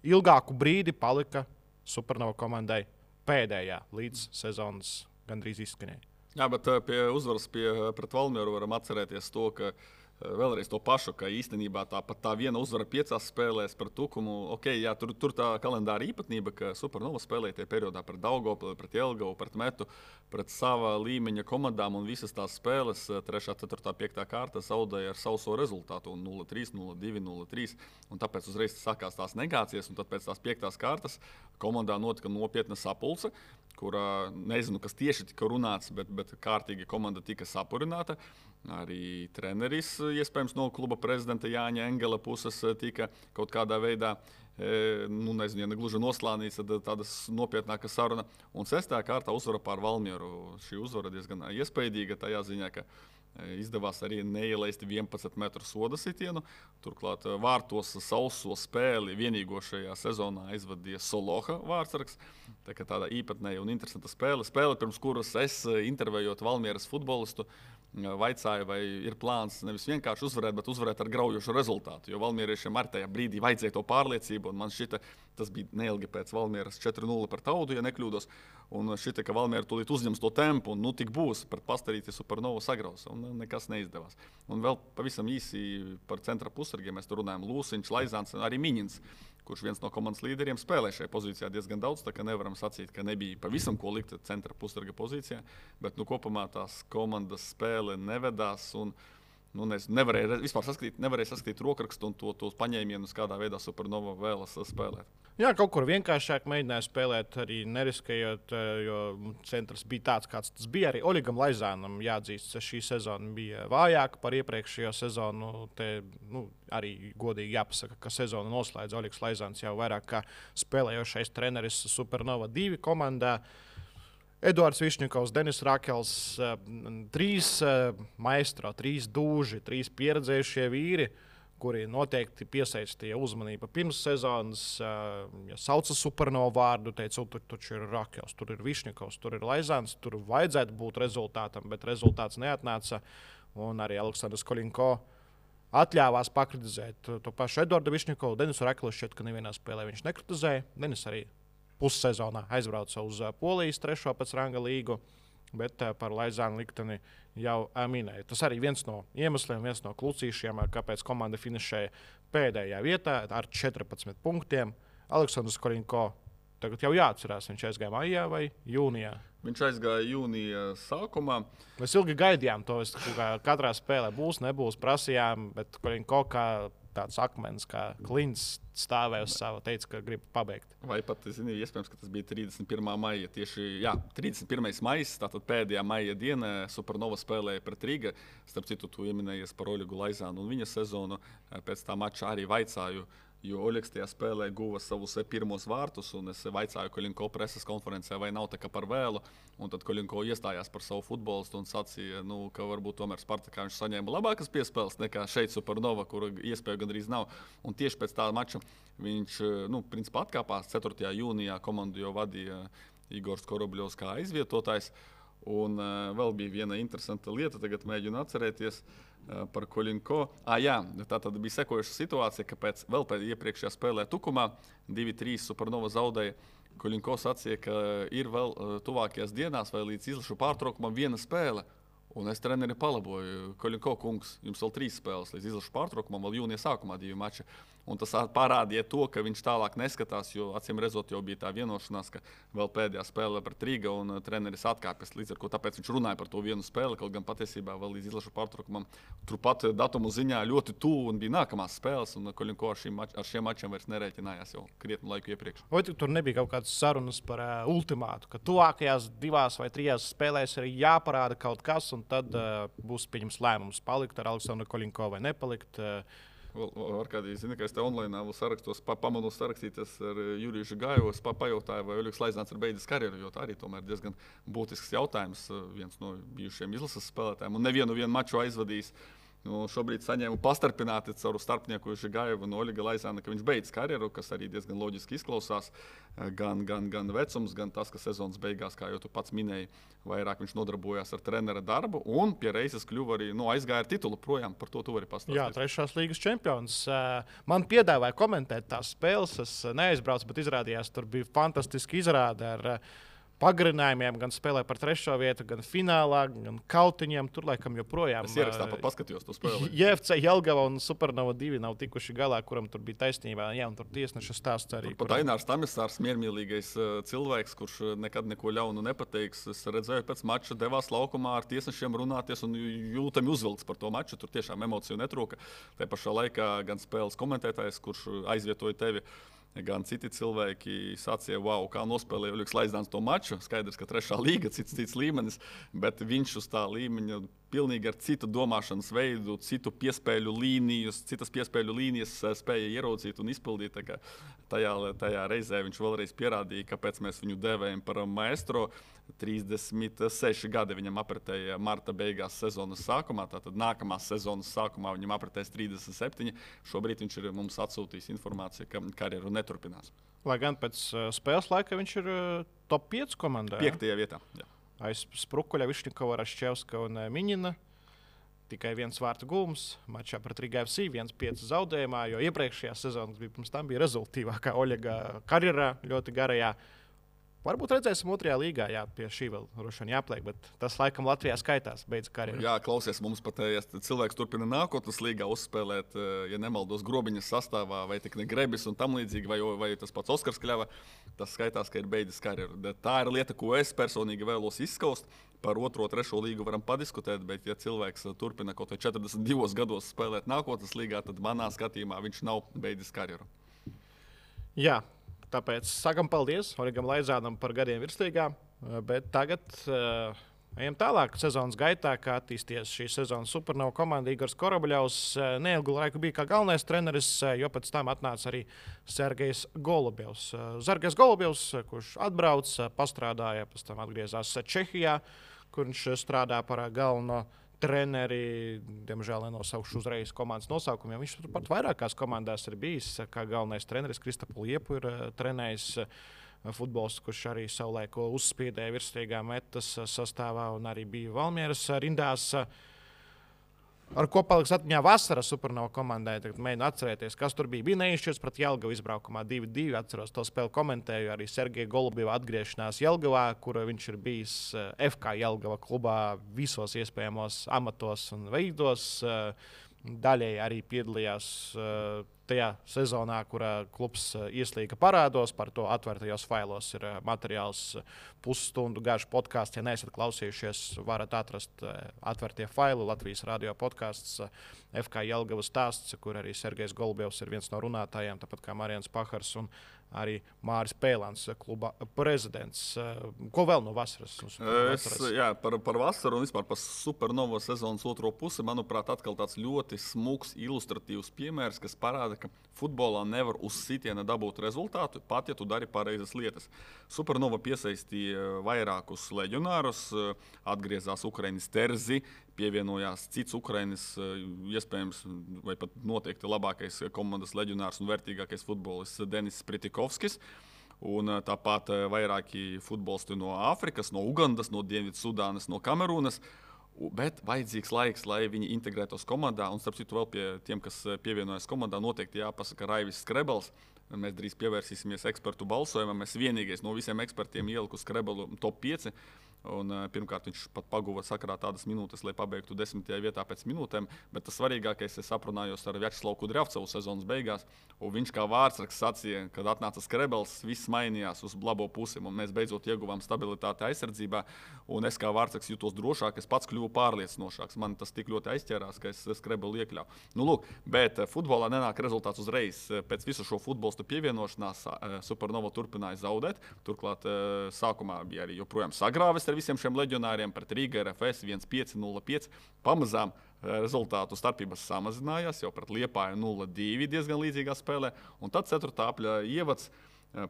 ilgāku brīdi palika Supernova komandai pēdējā līdz sezonas gandrīz izskanēja. Jā, bet pie uzvaras pret Valmieru varam atcerēties to, ka vēlreiz to pašu, ka īstenībā tā viena uzvara 5 spēlēs par Tukumu. Okay, jā, tur tā kalendāra īpatnība, ka Supernova spēlēja tie periodā pret Daugavpili, pret Jelgavu, pret Metu, pret sava līmeņa komandām, un visas tās spēles 3., 4., 5. kārta zaudēja ar sauso rezultātu 0-3, 0-2, 0-3. Un tāpēc uzreiz sākās tās negācijas, un tad pēc tās 5. kārtas komandā notika nopietna sapulce, kurā nezinu, kas tieši tika runāts, bet kārtīgi komanda tika sapurināta. Arī treneris, iespējams, no kluba prezidenta Jāņa Engela puses tika kaut kādā veidā, nezinu, ja ne gluži noslānīts, tad tādas nopietnāka saruna. Un 6. kārtā uzvara pār Valmieru. Šī uzvara diezgan iespaidīga tajā ziņā, ka izdevās arī neielaist 11 metru soda sitienu. Turklāt vārtos sauso spēli vienīgo šajā sezonā aizvadīja Soloha vārtsargs. Tā kā tāda īpatnēja un interesanta spēle. Spēle, pirms kuras es intervējot Valmieras futbolistu, vaicāja, vai ir plāns nevis vienkārši uzvarēt, bet uzvarēt ar graujošu rezultātu. Jo valmieriešiem ar tajā brīdī vajadzēja to pārliecību, un man šķita, tas bija neilgi pēc Valmieras 4-0 par Taudu, ja nekļūdos. Un šķita, ka Valmiera tūlīt uzņems to tempu, un tik būs, pret Pastarīti Supernovu sagraus, un nekas neizdevās. Un vēl pavisam īsi par centra pussargiem mēs tur runājam. Lūsiņš, Laizāns, arī Miņins, kurš viens no komandas līderiem spēlē šajā pozīcijā diezgan daudz, tā ka nevaram sacīt, ka nebija pavisam ko likt centra pussarga pozīcijā, bet kopumā tās komandas spēle nevedās, un nevarēja vispār saskatīt rokrakstu un tos paņēmienus, kādā veidā Supernova vēlas spēlēt. Jā, kaut kur vienkāršāk mēģināja spēlēt, arī neriskējot, jo centrs bija tāds, kāds tas bija. Arī Oļegam Laizānam jāatzīst, ka šī sezona bija vājāka par iepriekšējo sezonu. Arī godīgi jāpasaka, ka sezonu noslēdz Oļegs Laizāns jau vairāk kā spēlējošais treneris Supernova 2 komandā. Eduards Višņikovs, Denis Rakels, 3 maestro, 3 dūži, 3 pieredzējušie vīri, kuri noteikti piesaistīja uzmanību pirms sezonas. Ja sauca Supernova vārdu, teica, tur ir Rakels, tur ir Višņikovs, tur ir Laizāns, tur vajadzētu būt rezultātam, bet rezultāts neatnāca. Un arī Aleksandrs Koļinko atļāvās pakritizēt to pašu Eduardu Višņikovu. Denisu Rakelu šķiet, ka nevienā spēlē viņš nekritizēja. Denis arī pussezonā aizbrauca uz Polijas 3. pēc ranga līgu, bet par Laizānu likteni jau minēja. Tas arī viens no iemesliem, viens no klucīšiem, kāpēc komanda finišēja pēdējā vietā ar 14 punktiem. Aleksandrs Koļinko tagad jau jāatcerās, viņš aizgāja maijā vai jūnijā. Viņš aizgāja jūnija sākumā. Mēs ilgi gaidījām to, katrā spēlē būs, nebūs, prasījām, bet Koļinko kā tāds akmens, kā klints stāvēja uz savu, teica, ka grib pabeigt. Vai pat, iespējams, ka tas bija 31. maija. Tieši 31. maijs, tātad pēdējā maija diena, Supernova spēlēja pret Riga. Starp citu, tu ieminējies par Oļegu Laizānu un viņa sezonu. Pēc tā mača arī vaicāju, jo Oļegs tajā spēlē guva savus pirmos vārtus, un es vaicāju Koļinko preses konferencē, vai nav tā kā par vēlu. Un tad Koļinko iestājās par savu futbolistu un sacīja, ka varbūt tomēr Spartakā viņš saņēma labākas piespēles nekā šeit Supernova, kura iespēja gandrīz nav. Un tieši pēc tā mača viņš principā atkāpās 4. jūnijā. Komandu jau vadīja Igors Korobļovs kā aizvietotājs. Un vēl bija viena interesanta lieta, tagad mēģinu atcerēties par Koļinko. Tā tad bija sekojuša situācija, ka pēc iepriekšējā spēlē Tukumā 2-3 Supernova zaudēja. Koļinko sacīja, ka ir vēl tuvākajās dienās vai līdz izlašu pārtraukumam viena spēle. Un es treneri palaboju, Koļinko kungs, jums vēl 3 spēles līdz izlašu pārtraukumam, vēl jūnija sākumā 2 mači. Un tas parādīja to, ka viņš tālāk neskatās, jo acīm redzot jau bija tā vienošanās, ka vēl pēdējā spēlē pret Riga un treneris atkāpjas līdz ar ko. Tāpēc viņš runāja par to vienu spēli, kaut gan patiesībā vēl līdz izlašu pārtraukumam turpat datumu ziņā ļoti tuvu un bija nākamās spēles. Un Koļinko ar šiem mačiem vairs nerēķinājās jau krietnu laiku iepriekš. Vai tur nebija kaut kādas sarunas par ultimātu, ka tuvākajās 2 vai 3 spēlēs ir jāparāda kaut kas, un tad būs pieņems lēmums palikt ar Aleksandru Koļinko vai nepalikt? Arkādī, ka es te online sarakstos, pamanu sarakstīties ar Juriju Žigājevu. Es pajautāju, vai Oļegs Laizāns ir beidzis karjeru, jo tā arī tomēr diezgan būtisks jautājums. Viens no bijušiem izlases spēlētājiem un nevienu maču aizvadījis. Šobrīd saņēmu pastarpināti caur starpnieku Žigājevu un Oļega Laizāna, ka viņš beidz karjeru, kas arī diezgan loģiski izklausās. Gan vecums, gan tas, ka sezonas beigās, kā jau tu pats minēji, vairāk viņš nodarbojās ar trenera darbu un pie reizes kļuva arī aizgāja ar titulu projām. Par to tu vari pastāstīt. Jā, 3. līgas čempions. Man piedāvāja komentēt tās spēles. Es neaizbraucu, bet izrādījās, tur bija fantastiski izrāde ar pagarinājumiem, gan spēlē par 3. vietu, gan finālā, gan kautiņiem. Tur laikam joprojām. Es ierakstā paskatījos to spēli. JFC Jelgava un Supernova 2 nav tikuši galā, kuram tur bija taisnība. Jā, un tur tiesneša stāsts arī. Pat Ainārs Tamisārs, miermīlīgais cilvēks, kurš nekad neko ļaunu nepateiks. Es redzēju, pēc mača devās laukumā ar tiesnešiem runāties un jūtami uzvilkts par to maču. Tur tiešām emociju netrūka. Te pašā laikā gan spēles komentētājs, kurš aizvietoja tevi, gan citi cilvēki sacīja, wow, kā nospēlēja Oļegs Laizāns to maču. Skaidrs, ka 3. līga, cits līmenis, bet viņš uz tā līmeņa pilnīgi ar citu domāšanas veidu, citas piespēļu līnijas spēja ieraudzīt un izpildīt. Tajā reizē viņš vēlreiz pierādīja, kāpēc mēs viņu dēvējam par maestro. 36 gadi viņam apritēja marta beigās sezonas sākumā, tātad nākamās sezonas sākumā viņam apritēs 37. Šobrīd viņš ir mums atsūtījis informāciju, ka karjeru neturpinās. Lai gan pēc spēles laika viņš ir top 5 komandā. 5. vietā. Jā. Aiz Sprukuļa, Višņikova, Raščevska un Miņina. Tikai 1 vārtu gūms mačā pret Riga FC, 1-5 zaudējumā, jo iepriekšējā sezonā pirms tam bija rezultīvākā Oļega karjerā, ļoti garajā. Varbūt redzēsim 2. līgā, jā, pie šī vēl rušana jāpliek, bet tas laikam Latvijā skaitās, beidz karjeru. Jā, klausies, mums pat, ja cilvēks turpina nākotnes līgā uzspēlēt, ja nemaldos Grobiņas sastāvā, vai tik ne Grebis un tam līdzīgi, vai tas pats Oskars Kļava, tas skaitās, ka ir beidzis karjeru. Tā ir lieta, ko es personīgi vēlos izskaust. par 2. un 3. līgu varam padiskutēt, bet ja cilvēks turpina kaut vai 42 gados spēlēt nākotnes līgā, tad manā skatījumā viņš nav beidzis karjeru. Jā, tāpēc sakam paldies Origam Laizānam par gadiem virslīgā, bet tagad ejam tālāk sezonas gaitā, kā attīstījies šī sezonas Supernova komanda. Igors Korobļovs neilgu laiku bija kā galvenais treneris, jo pēc tam atnāca arī Sergejs Golubjovs. Sergejs Golubjovs, kurš atbrauc, pastrādāja, pēc tam atgriezās Čehijā, kur viņš strādā par galveno treneri. Diemžēl nenosaukšu uzreiz komandas nosaukumu, jo viņš pat vairākās komandās ir bijis kā galvenais treneris. Kristapu Liepu ir trenējis. Futbolists, kurš arī savulaik uzspīdēja virslīgā metas sastāvā un arī bija Valmieras rindās. Ar ko paliks atmiņā vasara Supernova komandai? Tagad mēģinu atcerēties, kas tur bija. Bija neizšķirts pret Jelgavu izbraukumā 2-2. Atceros to spēli, komentēju arī Sergeja Golubjova atgriešanās Jelgavā, kur viņš ir bijis FK Jelgava klubā visos iespējamos amatos un veidos. Daļēji arī piedalījās tajā sezonā, kurā klubs ieslīga parādos. Par to atvērtajos failos ir materiāls pusstundu garš podkāsts. Ja neesat klausījušies, varat atrast atvērtie faili Latvijas radio podkāsts FK Jelgavas stāsts, kur arī Sergejs Golubjovs ir viens no runātājiem, tāpat kā Marians Pahars un arī Māris Pēlāns, kluba prezidents. Ko vēl no vasaras? Par vasaru un vispār par Supernova sezonas otro pusi, manuprāt, atkal tāds ļoti smuks, ilustratīvs piemērs, kas parāda, ka futbolā nevar uz sitiena dabūt rezultātu, pat ja tu dari pareizas lietas. Supernova piesaistīja vairākus leģionārus, atgriezās Ukraiņas Terzi, pievienojās cits Ukraiņas, iespējams, vai pat noteikti labākais komandas leģionārs un vērtīgākais futbolists Denis Spritikovskis. Un tāpat vairāki futbolisti no Āfrikas, no Ugandas, no Dienvidsudānas, no Kamerūnas. Bet vajadzīgs laiks, lai viņi integrētos komandā. Un, starp citu, vēl pie tiem, kas pievienojas komandā, noteikti jāpasaka Raivis Skrebels. Mēs drīz pievērsīsimies ekspertu balsojumam. Es vienīgais no visiem ekspertiem ieliku Skrebelu top 5. Un, pirmkārt, viņš pat paguva sakarā tādas minūtes, lai pabeigtu 10. vietā pēc minūtēm. Bet tas svarīgākais, es aprunājos ar Vjačeslavu Kudrjavcevu sezonas beigās. Un viņš kā vārdsargs sacīja, kad atnāca Skrebels, viss mainījās uz labo pusi. Mēs beidzot ieguvām stabilitāti aizsardzībā. Un es kā vārdsargs jutos drošāk, es pats kļuvu pārliecinošāks. Man tas tik ļoti aizķērās, ka es Skrebelu iekļāvu. Nu, lūk, bet futbolā nenāk rezultāts uzreiz. Pēc visu šo futbolistu pievienošanās Supernova turpināja zaudēt. Turklāt sākumā bija arī joprojām sagrāvis ar visiem šiem leģionāriem pret Rīga RFS 1-5-0-5. Pamazām rezultātu starpības samazinājās, jau pret Liepāju 0-2 diezgan līdzīgā spēlē. Un tad 4. apļa ievads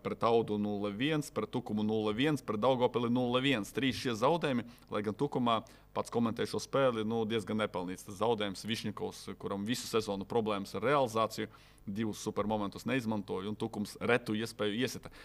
pret Audu 0-1, pret Tukumu 0-1, pret Daugavpili 0-1. 3 šie zaudējumi, lai gan Tukumā pats komentēja šo spēli, diezgan nepelnīts. Tas zaudējums Višņikovs, kuram visu sezonu problēmas ar realizāciju, 2 supermomentus neizmantoja un Tukums retu iespēju iesita.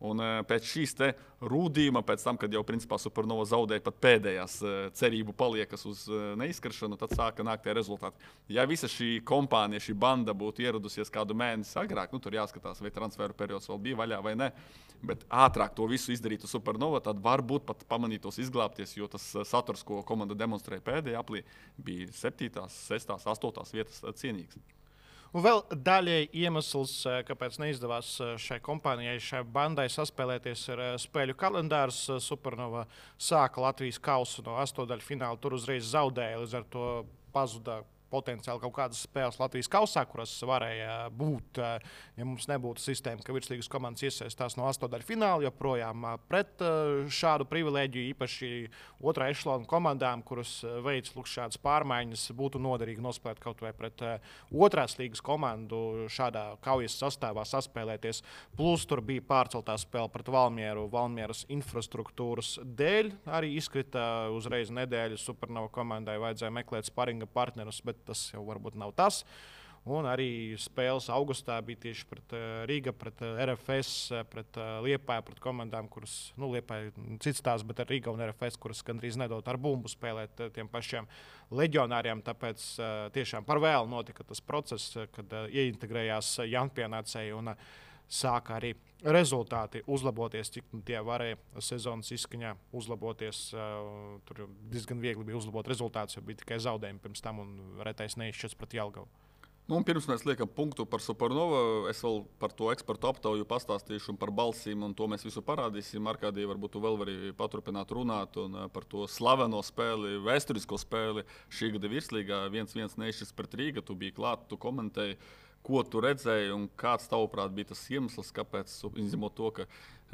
Un pēc šīs te rūdījuma, pēc tam, kad jau principā Supernova zaudēja pat pēdējās cerību paliekas uz neizkaršanu, tad sāka nākt tie rezultāti. Ja visa šī kompānija, šī banda būtu ieradusies kādu mēnesi agrāk, tur jāskatās, vai transferu periods vēl bija vaļā vai ne, bet ātrāk to visu izdarītu Supernova, tad varbūt pat pamanītos izglābties, jo tas saturs, ko komanda demonstrēja pēdējā aplī, bija 7., 6., 8. vietas cienīgs. Un vēl daļēji iemesls, kāpēc neizdevās šai kompānijai, šai bandai saspēlēties, ir spēļu kalendārs. Supernova sāka Latvijas kausu no 8. fināla, tur uzreiz zaudēja, līdz ar to pazuda potenciāli kaut kādas spēles Latvijas kausā, kuras varēja būt, ja mums nebūtu sistēma, ka virslīgas komandas iesaistās no 8. fināla, joprojām pret šādu privilēģiju, īpaši otrā ešalona komandām, kuras veids šādas pārmaiņas, būtu noderīgi nospēlēt kaut vai pret otrās līgas komandu šādā kaujas sastāvā saspēlēties. Plus tur bija pārceltā spēle pret Valmieru, Valmieras infrastruktūras dēļ. Arī izkrita uzreiz nedēļu Supernova komandai, vajadzēja meklēt sparinga partnerus, bet tas jau varbūt nav tas. Un arī spēles augustā bija tieši pret Rīga, pret RFS, pret Liepāju, pret komandām, kuras, Liepāja cits tās, bet ar Rīga un RFS, kuras gandrīz nedod ar bumbu spēlēt tiem pašiem leģionāriem. Tāpēc tiešām par vēlu notika tas process, kad ieintegrējās jaunpienācēji un sāka arī rezultāti uzlaboties, cik tie varēja sezonas izskaņā uzlaboties. Tur diezgan viegli bija uzlabot rezultātus, jo bija tikai zaudējumi pirms tam un retais neizšķirts pret Jelgavu. Nu, pirms mēs liekam punktu par Supernovu, es vēl par to ekspertu aptauju pastāstīšu un par balsīm, un to mēs visu parādīsim. Arkādija, varbūt tu vēl vari paturpināt runāt un par to slaveno spēli, vēsturisko spēli šī gada virslīgā 1-1 nešķis pret Rīgu. Tu biji klāt, tu komentēji, ko tu redzēji un kāds tavuprāt bija tas iemesls, kāpēc, izņemot to, ka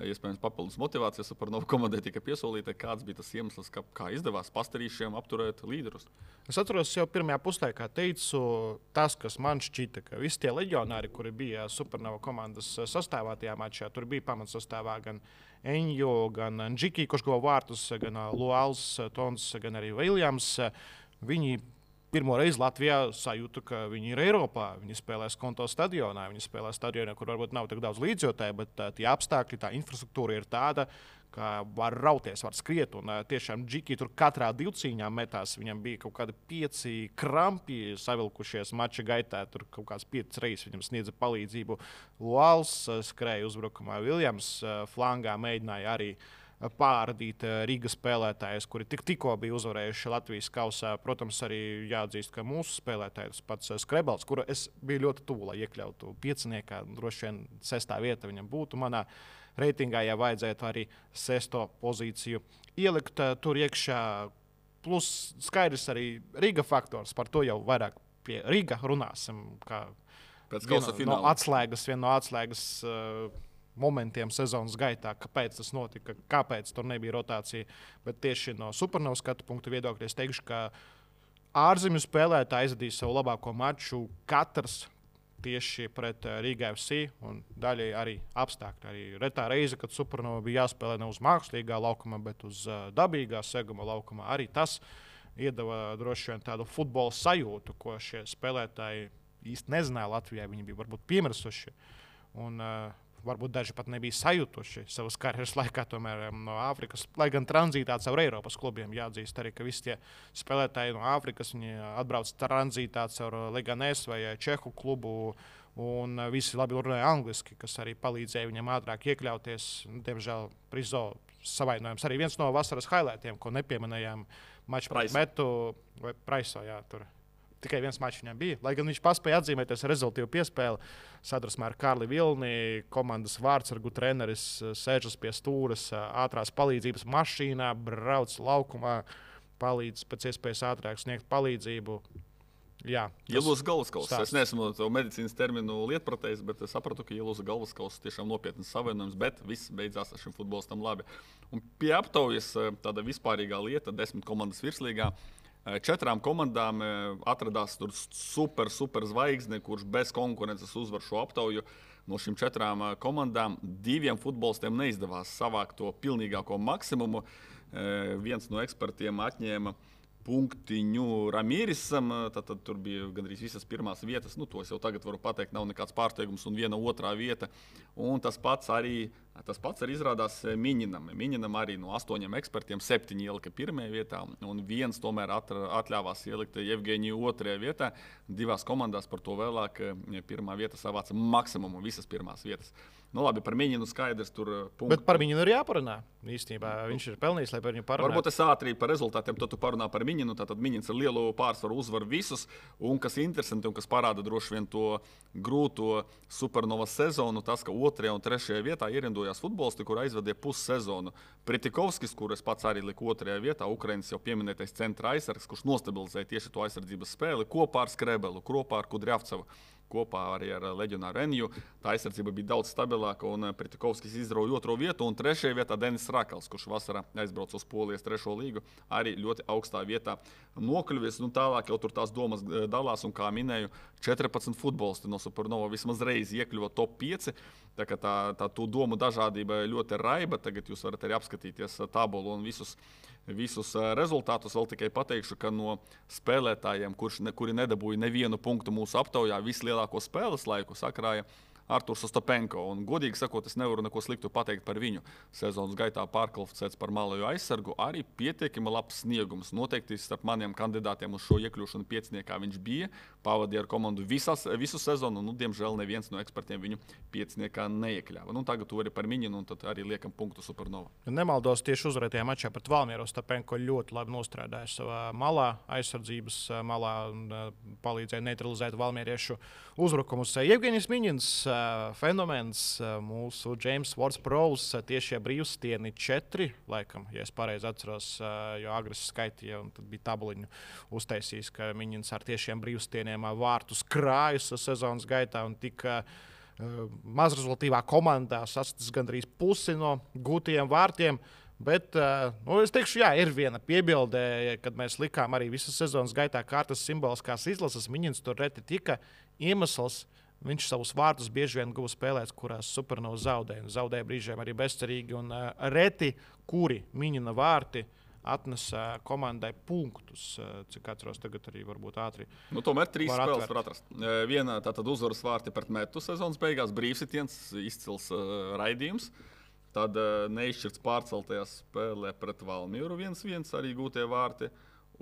iespējams papildus motivācijas par novu komandai tika piesolīta, kāds bija tas iemesls, kā izdevās pastarīšiem apturēt līderus? Es atceros, jau pirmajā puslaikā teicu, tas, kas man šķita, ka visi tie leģionāri, kuri bija Supernova komandas sastāvā tajā mačā, tur bija pamatsastāvā gan Enjo, gan Džiki, kurš guva vārtus, gan Luāls, Tons, gan arī Viljams. Viņi pirmo reizi Latvijā sajūta, ka viņi ir Eiropā. Viņi spēlē Skonto stadionā. Viņi spēlē stadionā, kur varbūt nav tik daudz līdzjūtēju, bet tie apstākļi, tā infrastruktūra ir tāda, ka var rauties, var skriet. Un tiešām Džiki tur katrā divcīņā metās. Viņam bija kaut kādi 5 krampi savilkušies mača gaitā. Tur kaut kāds 5 reizes viņam sniedza palīdzību. Luāls skrēja uzbrukumā. Viljams flangā mēģināja arī pārādīt Rīgas spēlētājus, kuri tikko bija uzvarējuši Latvijas kausā. Protams, arī jāatzīst, ka mūsu spēlētājs pats Skrebels, kuru es biju ļoti tuvu, lai iekļautu pieciniekā, droši vien 6. vieta viņam būtu manā reitingā, ja vajadzētu arī 6. pozīciju ielikt tur iekšā. Plus skaidrs arī Rīga faktors, par to jau vairāk pie Rīga runāsim, kā viena no atslēgas momentiem sezonas gaitā, kāpēc tas notika, kāpēc tur nebija rotācija. Bet tieši no Supernovas skatu punktu viedokļa es teikšu, ka ārzemju spēlētāji aizvadīja savu labāko maču katrs tieši pret Rīga FC un daļai arī apstākļi. Arī retā reize, kad Supernova bija jāspēlē ne uz mākslīgā laukuma, bet uz dabīgā seguma laukuma, arī tas iedeva droši vien tādu futbola sajūtu, ko šie spēlētāji īsti nezināja Latvijā. Viņi bija varbūt piemirsuši. Un varbūt daži pat nebija sajutuši savas karjeras laikā no Āfrikas, lai gan tranzītā caur Eiropas klubiem. Jāatzīst arī, ka visi tie spēlētāji no Āfrikas atbrauc tranzītā caur Leganés vai Čehu klubu, un visi labi runāja angliski, kas arī palīdzēja viņam ātrāk iekļauties. Diemžēl Prizo savainojums arī viens no vasaras highlightiem, ko nepieminējām maču pret Metu vai Praiso. Jā, tur. Tikai viens mačs viņam bija. Lai gan viņš paspēja atzīmēties ar rezultātu piespēli, sadarbībā ar Kārli Vilni, komandas vārdsargu treneris sēžas pie stūres, ātrās palīdzības mašīnā, brauc laukumā, palīdz pēc iespējas ātrāk sniegt palīdzību. Jā, ielūza galvaskauss. Es neesmu to medicīnas terminu lietpratējis, bet es sapratu, ka ielūza galvaskauss tiešām nopietnas savainojums, bet viss beidzās ar šim futbolistam labi. Un pie aptaujas tāda vispārīgā lieta, 10 komandas virslīgā. 4 komandām atradās tur super zvaigzne, kurš bez konkurences uzvar šo aptauju. No šīm 4 komandām 2 futbolistiem neizdevās savākt to pilnīgāko maksimumu. Viens no ekspertiem atņēma punktiņu Ramīrisam, tad tur bija gandrīz visas pirmās vietas. To es jau tagad varu pateikt, nav nekāds pārsteigums, un viena otrā vieta. Un tas pats arī izrādās Miņinam. Miņinam arī no 8 ekspertiem 7 ielika pirmajā vietā, un viens tomēr atļāvās ielikt Jevgeņiju 2. vietā. 2 komandās par to vēlāk pirmā vieta savāca maksimumu, visas pirmās vietas. Labi, par Miņinu skaidrs tur punktu. Bet par Miņinu ir jāparunā. Īstenībā viņš ir pelnījis, lai par viņu parunātu. Varbūt es ātri par rezultātiem, tad tu parunā par Miņinu. Tātad Miņins ar lielu pārsvaru uzvar visus. Un kas interesanti un kas parāda droši vien to grūto Supernovas sezonu, tas, ka 2. un 3. vietā ierindojās futbolisti, kur aizvadīja pussezonu. Pritikovskis, kur es pats arī liku 2. vietā, Ukrainas jau pieminētais centra aizsargs, kurš nostabilizēja tieši to aizsardzības spēli kopā ar Skrebelu, kopā ar Kudriavcevu. Kopā arī ar leģionāru Enju. Tā aizsardzība bija daudz stabilāka, un Pritikovskis izrauja 2. vietu, un 3. vietā Denis Rakals, kurš vasarā aizbrauca uz Polijas 3. līgu, arī ļoti augstā vietā nokļuvis. Tālāk jau tur tās domas dalās, un kā minēju, 14 futbolisti no Supernova vismaz reizi iekļuva top 5. Tā kā tā domu dažādība ļoti raiba. Tagad jūs varat arī apskatīties tabulu un visus rezultātus. Vēl tikai pateikšu, ka no spēlētājiem, kuri nedabūja nevienu punktu mūsu aptaujā, vislielāko spēles laiku sakrāja Arturs Ostapenko. Un, godīgi sakot, es nevaru neko sliktu pateikt par viņu. Sezonas gaitā pārkvalificēts par malējo aizsargu, arī pietiekami labs sniegums. Noteikti starp maniem kandidātiem uz šo iekļūšanu pieciniekā viņš bija. Pavadīja ar komandu visu sezonu, un, diemžēl, neviens no ekspertiem viņu pieciniekā neiekļāva. Tagad tu vari par Miņinu, un tad arī liekam punktu Supernova. Nemaldos, tieši uzvarētajā mačā pret Valmieru Ostapenko ļoti labi nostrādāja savā malā, aizsardzības malā, un palīdzēja neutralizēt valmieriešu uzbrukumus. Jevgeņijs Miņins, fenomens, mūsu James Ward-Prowse, tiešie brīvstieni 4, laikam, ja es pareizi atceros, jo agres skaitīja, un tad bija tabuliņu uztaisījis, ka Miņins ar tiešiem brīvstieniem vārtus krājas sezonas gaitā un tika mazrezultīvā komandā sasniedz gandrīz pusi no gūtajiem vārtiem. Bet es teikšu, jā, ir viena piebilde, kad mēs likām arī visas sezonas gaitā kārtas simboliskās izlases. Miņins tur reti tika iemesls. Viņš savus vārtus bieži vien guva spēlēs, kurās Supernova zaudēja. Zaudēja brīžiem arī bezcerīgi. Un reti, kuri Miņina vārti atnesa komandai punktus. Cik atceros, tagad arī varbūt ātri. Tomēr 3 spēles var atrast. Viena tātad uzvaras vārti pret Metu sezonas beigās, brīvsitiens, izcils raidījums. Tad neizšķirts pārceltajā spēlē pret Valmieru 1-1 arī gūtie vārti.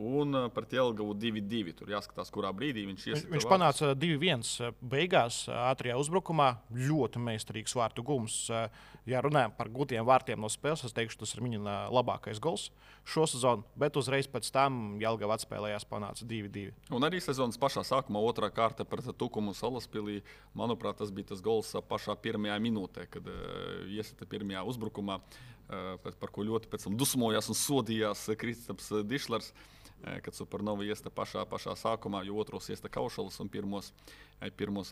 Un pret Jelgavu 2-2. Tur jāskatās, kurā brīdī viņš iesita. Viņš panāca 2-1 beigās, ātrajā uzbrukumā. Ļoti meistarīgs vārtu gums. Ja runājam par gūtiem vārtiem no spēles, es teikšu, tas ir viņa labākais gols šo sezonu. Bet uzreiz pēc tam Jelgava atspēlējās, panāca 2-2. Un arī sezonas pašā sākumā otrā kārta pret Tukumu Salaspilī. Manuprāt, tas bija tas gols pašā pirmajā minūtē, kad iesita pirmajā uzbrukumā, par ko ļoti pēc tam dusmojās un sodījās Kristaps Dišlers. Kad Supernova iesta pašā sākumā, jo otros iesta Kaušalis un pirmos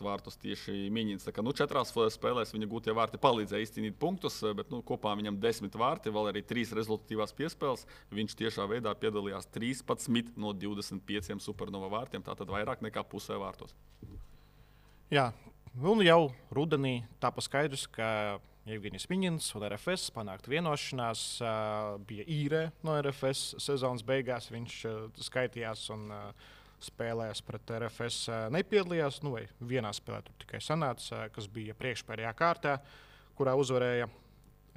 vārtus tieši Miņins. 4 spēlēs viņa gūtie vārti palīdzēja izcīnīt punktus, bet kopā viņam 10 vārti, vēl arī 3 rezultatīvās piespēles. Viņš tiešā veidā piedalījās 13 no 25 Supernova vārtiem, tātad vairāk nekā pusē vārtos. Jā, un jau rudenī tāpa skaidrs, ka Jevgeņijs Miņins un RFS panākt vienošanās, bija īrē no RFS sezonas beigās. Viņš skaitījās un spēlēs pret RFS nepiedalījās. Vai vienā spēlē tur tikai sanāca, kas bija priekšpēdējā kārtā, kurā uzvarēja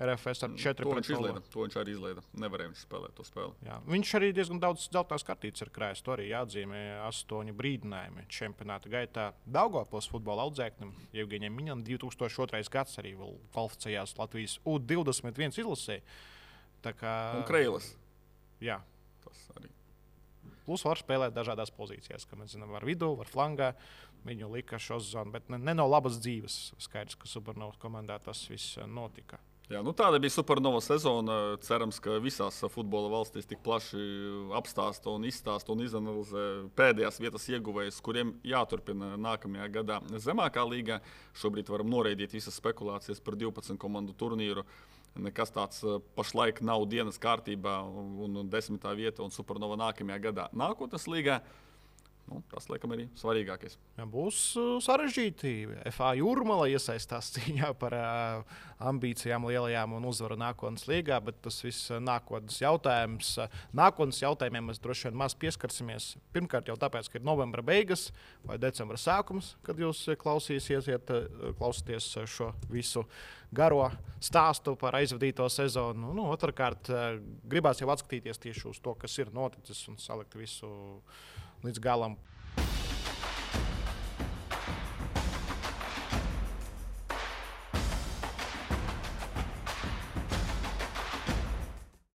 RFS ar 4-0. To viņš arī izlaida. Nevarēja viņš spēlēt to spēli. Jā, viņš arī diezgan daudz dzeltenās kartītes ir krājis. To arī jāatzīmē 8 brīdinājumi čempionāta gaitā. Daugavpils futbola audzēknim Jevgeņijam Miņinam 2002. gads arī vēl kvalificējās Latvijas U21 izlasē. Un Kreilis. Jā. Tas arī. Plus var spēlēt dažādās pozīcijās, kā mēs zinām, var vidū, var flangā. Viņu lika šo zonu, bet ne no labas dzīves. Skaidrs, ka Supernovas komandā tas viss notika. Jā, tāda bija Supernova sezona. Cerams, ka visās futbola valstīs tik plaši apstāsta un izstāsta un izanalizē pēdējās vietas ieguvējus, kuriem jāturpina nākamajā gadā zemākā līgā. Šobrīd varam noraidīt visas spekulācijas par 12 komandu turnīru. Nekas tāds pašlaik nav dienas kārtībā un 10. vieta un Supernova nākamajā gadā nākotnes līgā. Tas, laikam, arī svarīgākais. Jā, būs sarežģīti. FA Jūrmala iesaistās cīņā par ambīcijām lielajām un uzvaru nākotnes līgā, bet tas viss nākotnes jautājums. Nākotnes jautājumiem mēs droši vien maz pieskarsimies. Pirmkārt jau tāpēc, ka ir novembra beigas vai decembra sākums, kad jūs klausāties šo visu garo stāstu par aizvadīto sezonu. Otrkārt, gribās jau atskatīties tieši uz to, kas ir noticis un salikt visu līdz galam.